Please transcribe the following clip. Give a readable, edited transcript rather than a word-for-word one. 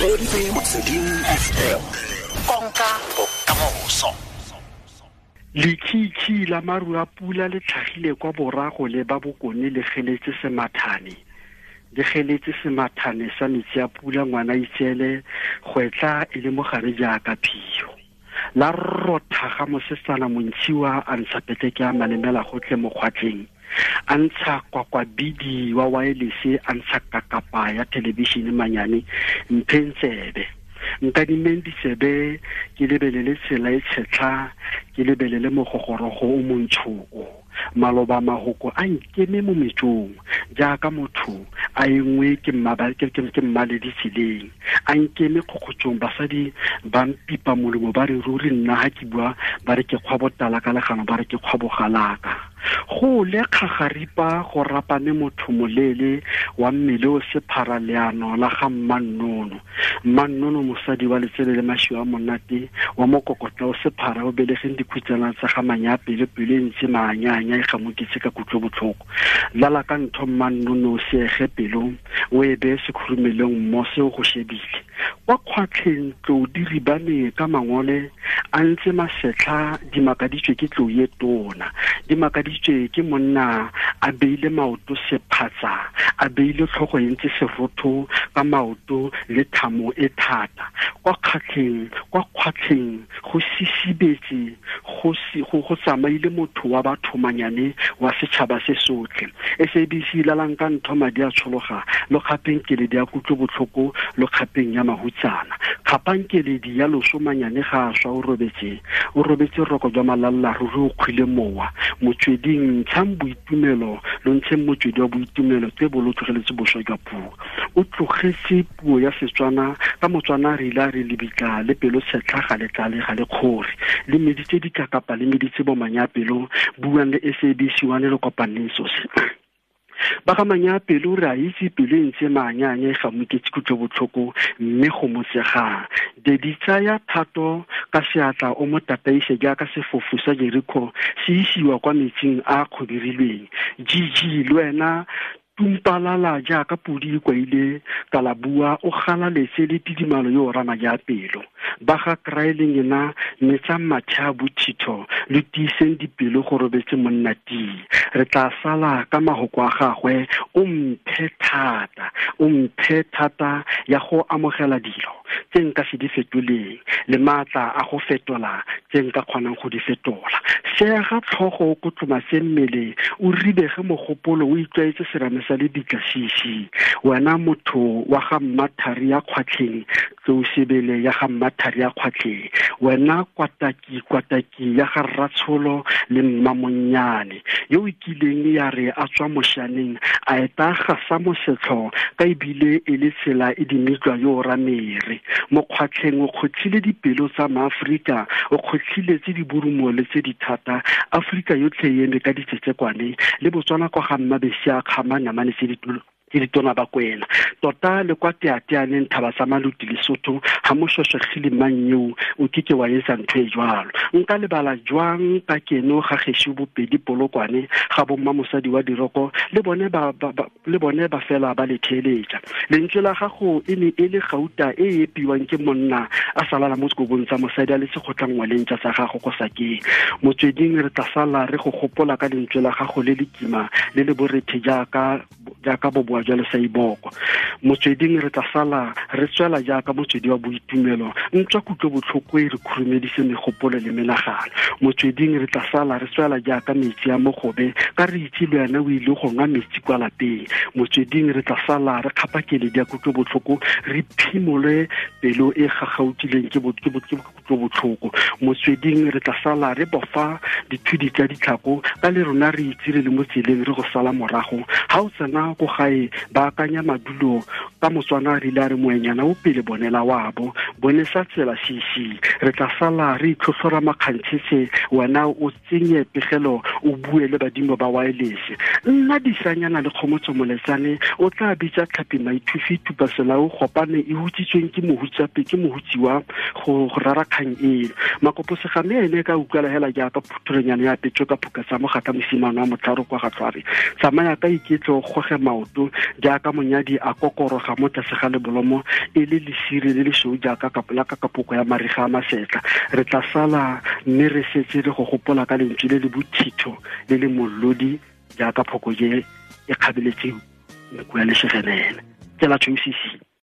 Motsweding FM, konka bokamoso. Lekhikhi la maru a pula le tlhagile kwa borago le ba bokone le geletse semathane. Le geletse semathane sa metsi a pula ngwana itseele gwetla e le mogare jaaka phio. La rotha ga mosetsana montshiwa a ntsha petleke a malemela gotlhe mo kgwatlheng. A ntsha kwakwabidi wa waelese, a ntsha kakapa ya thelebišene manyane mpheng tsebe. Nkadimeng ditsebe ke lebelele tsela e tshetlha, ke lebelele mogogorogo o montsho o. Maloba mahoko a nkeme mo metsong jaaka motho a engwe ke mmaledi tseleng. A nkeme kgokgotsong, basadi ba mpipa molomo ba re ruri nna ha ke bua ba re ke kgwa botala ka legano, ba re ke kgwa bogalaka. Go le kgagaripa go rapame motho moleele wa mmele o sephara leano la ga Mmannono. Mmannono mosadi wa letsele le mašwi a monate wa mokokotla o sephara o belegeng dikhutsana tsa ga Manyapele, pelo e ntse maanyaanya e gamoketse ka kutlobotlhoko. Lala ka ntho Mmannono o seege pelo o e beye sekhurumelong mmose o go shebile. Kwa kgwatlheng tlou di ribane ka mangole a ntse masetlha di makaditswe ke tlou e tona, di makaditswe ke monna a beile maoto sephatsa, a beile tlhogo e ntse serotho ka maoto le thamo e thata. Kwa kgwatlheng, kwa kgwatlheng go sisibetse, go tsamaile motho wa batho manyane wa setšhaba se sotlhe. SABC lalang ka ntho madi a tshologa, lo kgapeng keledi ya kutlobotlhoko, lo kgapeng ya mahutsana. Kgapang keledi ya loso manyane ga a swa o robetse, o robetse roko jwa malalla ruri o kgwile mowa. Motsweding ntshang boitumelo, lo ntsheng motswedi wa boitumelo tse bo lo tlogeletse boswa jwa puo. O tlogetse puo ya Setswana ka Motswana re ile a re lebitla le pelo tshetlha ga le tlale ga le kgore. Le meditse dikakapa le meditse bomanyapelo, buang le SABC 1 le kopaneng sose. Ba ga Manyapelo re a itse pelo e ntse maanyaanya e gamoketse kutlobotlhoko mme go motsegang. Dedi tsaya thato ka seatla o mo tataise jaaka sefofu sa Jericho se isiwa kwa metsing a kgobirilweng. GG le wena tumpalala jaaka podi e kwaile kalabua o galaletse le tidimalo yo o rama ja pelo. Ba ga Kraeleng ena metsang matšha a bothitho le tiiseng dipelo go robetse monna tii. Re tla sala ka mahoko a gagwe, o mphe thata, o mphe thata ya go amogela dilo tse nka se di fetoleng le maatla a go fetola tse nka kgonang go di fetola. Sega tlhogo o kotlomase mmele, o ribege mogopolo, o itlwaetse serame sa lebitla sisi. Wena motho wa ga Mmathari ya kgwatlheng, tlou sebele ya ga Mmathari ya kgwatlheng. Wena kwataki, kwataki ya ga Rratsholo le Mmamonnyane, yo o kileng ya re a tswa moshaneng a eta gasa mosetlho ka ebile e le tsela e dimitlwa yo o ramere. Mokgwatlheng o kgotlhile dipelo tsa maAforika, o kgotlhile tse di borumo le tse di thata. Aforika yotlhe e eme ka ditsetsekwane le Botswana kwa ga Mmabesi a kgama namane tse di ke ditona ba kwena. Tota le kwa teateaneng thaba tsa Maluti Lesotho ga mošošegile mang eo o keke wa etsa ntho e jwalo. Nka lebala jwang ka keno ga gešo bopedi Polokwane ga bomma mosadi wa diroko le bone ba, ba, ba, le bone ba fela ba le theeletša. Lentswe la gago e ne e le gauta e e epiwang ke monna a salala mo sekobong tsa mosadi a le sekgotlangwaleng tsa gago ko sakeng. Motsweding re tla sala re go gopola ka lentswe la gago le le kima le le borethe jaaka boboa jwa lesaiboko. Motsweding re tla sala re tswela jaaka motswedi wa boitumelo, ntswa kutlobotlhoko e re khurumedise megopolo le menagano. Motsweding re tla sala re tswela jaaka metsi a mogobe, ka re itse le wena o ile go nwa metsi kwa lapeng. Motsweding re tla sala re kgapa keledi ya kutlobotlhoko, re phimole pelo e gagautileng ke kutlobotlhoko. Motsweding re tla sala re bofa dithudi tsa ditlhako, ka le rona re itse re le mo tseleng re go sala morago. Ha o tsena ko gae ba akanya madulo ka Motswana re ile a re moenyana o pele bonela wabo, bone sa tsela sisi. Re tla sala re itlhotlhora makgantshetse, wena o tsenye pegelo o bue le badimo ba wireless. Nna disanyana le kgomotso moletsane o tla bitsa tlhapi maithufi tupa selao gopane e hutsitsweng ke mohutsape ke mohutsiwa go rara kgang eno. Makopo segame ene ka utlwala hela jaaka phutholonyana ya petso ka phuka tsa mogatla mosimane wa motlharo kwa ga Tlhware. Tsamaya ka iketlo goge maoto jaaka monyadi a kokoroga mo tlase ga lebolomo e le lesire le lesweu jaaka la ka kapoko ya mariga a masetla. Re tla sala mme re setse re go gopola ka lentswe le le bothitho le le mollodi jaaka phokoje e kgabeletse nku ya lesegenene. Tsela tshweu.